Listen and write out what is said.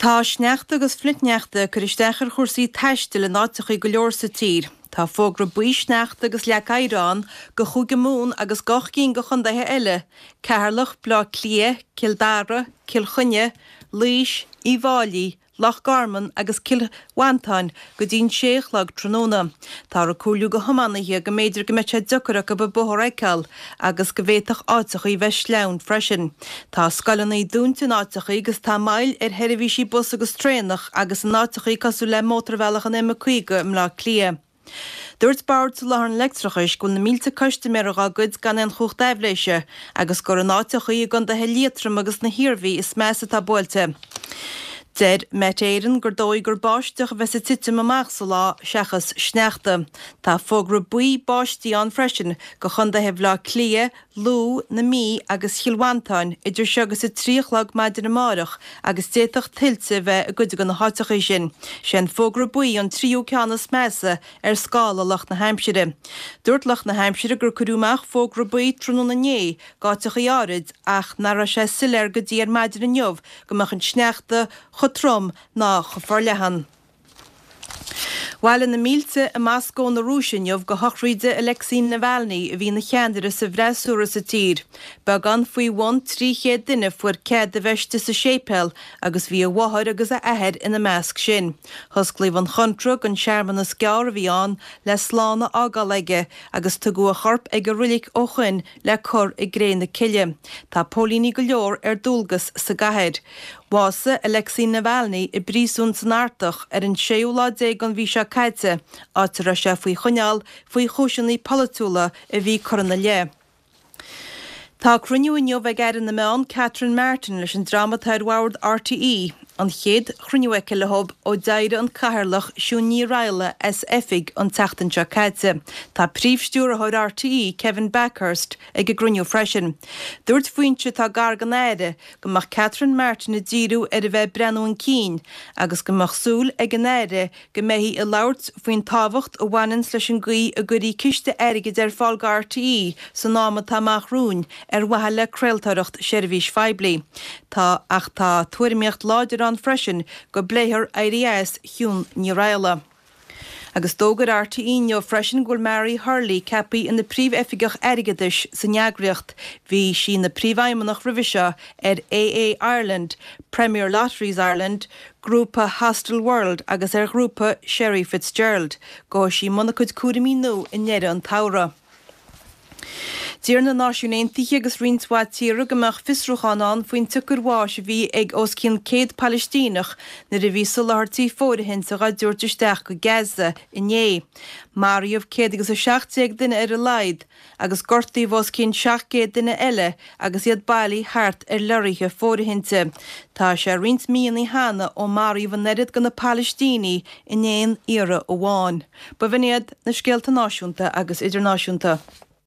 Tá sneachta agus flichshneachta ag cur isteach ar chúrsaí taistil in áiteachaí go leor sa tír. Tá fógra buí sneachta agus leac oighir ann go Chúige Mumhan agus go 8 gcinn de chontaetha eile, Ceatharlach, Bleá Cliath, Cill Dara, Cill Chainnigh, Laois, Uíbh Fháilí, Loch Garman agus Cill Mhantáin go dtí'n sé a chlog tráthnóna. Táthar ag comhairliú go thiománaithe go mb'fhéidir go mbeidh sé deocair acu an bóthar a fheiceáil agus go bhféadfadh áiteachaí bheith sleamhain freisin. Tá scoileanna dúnta in áiteachaí agus tá moill ar sheirbhísí bus agus traenach agus in áiteachaí cosúil le mótarbhealach an M50 i mBleá Cliath. Dúirt Bord Soláthair an Leictreachais go bhfuil na mílte custaiméir dhá gcuid gan aon chumhacht aibhléise agus gur in áiteachaí i gcontaetha Liatroma agus na hIarmhí is measa atá buailte. Deir Met Éireann gur dóigh gur báisteach a bheas ag titim amach sa lá seachas sneachta. Tá fógra buí báistí ann freisin go chontaetha Bhaile Átha Cliath, Lú, na Mí agus Chill Mhantáin idir seo agus 3 a chlog maidin amárach agus d'fhéadfadh tuilte a bheith i gcuid de na háiteachaí sin. Sé an fógra buí an tríú ceann is measa ar scála lucht na haimsire. Dúirt lucht na haimsire gur cuireadh amach fógra buí tráthnóna inné d'áiteachaí áirid ach nach raibh sé soiléir go dtí ar maidin inniu go mbeadh an sneachta chomh trom ná chomh forleathan. Bhailigh na mílte i Moscó na Rúise inniu go shochraíde Alexei Navalny a bhí ina cheannaire sa bhfreasúra sa tír. Beagán faoi bhun 300 duine a fuair cead a bheith istigh sa séipéal agus bhí a mháthair agus a athair ina measc sin. Hosclaíodh an chontra don searmanas gearr a bhí ann le slán a fhágáil aige agus tugadh a chorp ag an roilig ó shoin le cur i gcré na cille. Tá póilíní go leor ar dualgas sa gcathair. Bhásaigh Alexei Navalny i bpríosún san Artach ar an séú lá déag den mhí seo caite, áit a raibh sé faoi choinneáil faoi chúiseanna polaitiúla a bhí curtha ina leith. Tá cruinniú inniu ag Aire na Meán Catherine Martin leis an dream atá ar bhord RTÉ, an chéad chruinniú aici leo ó d'éirigh an Cathaoirleach Siún Ní Raghallaigh as oifig an tseachtain seo caite. Tá Príomh-Stiúrthóir RTÉ, Kevin Bakhurst, ag an gcruinniú freisin. Dúirt foinse atá gar don Aire go mbeadh Catherine Martin ag díriú ar a bheith ag breathnú chun cinn agus go mbeadh súil ag an Aire go mbeifí ag labhairt faoin tábhacht a bhaineanns leis an gcaoi a gcuirfí ciste airgid ar fáil go RTÉ san am atá amach romhainn ar mhaithe le craoltóireacht seirbhís phoiblí. Tá ach tá tuairimíocht láidir ann freisin go bpléifear éirí as Shiún Ní Raghallaigh. Agus d'fhógair RTÉ inniu freisin go bhfuil Mary Hurley ceaptha ina Príomh-Oifigeach Airgeadais san eagraíocht. Bhí sí ina Príomhfheidhmeannach roimhe seo ar AA Ireland, Premier Lotteries Ireland, Grúpa Hostelworld agus ar Ghrúpa Sherry FitzGerald. Gabhfaidh sí i mbun a cuid cúraimí nua i ndeireadh an tsamhraidh. D'iarr na Náisiúin Aontaithe agus roinnt mhaith tíortha go mbeadh fiosrúchán ann faoin tsiocair bháis a bhí ag os cionn 100 Palaistíneach nuair a bhí soláthairtí fóirithinte dhá dtabhairt isteach go Gaza inné. Maraíodh 117 duine ar a laghad agus gortaíodh os cionn 700 duine eile agus iad bailithe thart ar leoraithe fóirithinte. Tá sé roinnt míonna cheana ó maraíodh an oiread de na Palaistínigh in aon iarraidh amháin. B'in iad na scéalta náisiúnta agus idirnáisiúnta.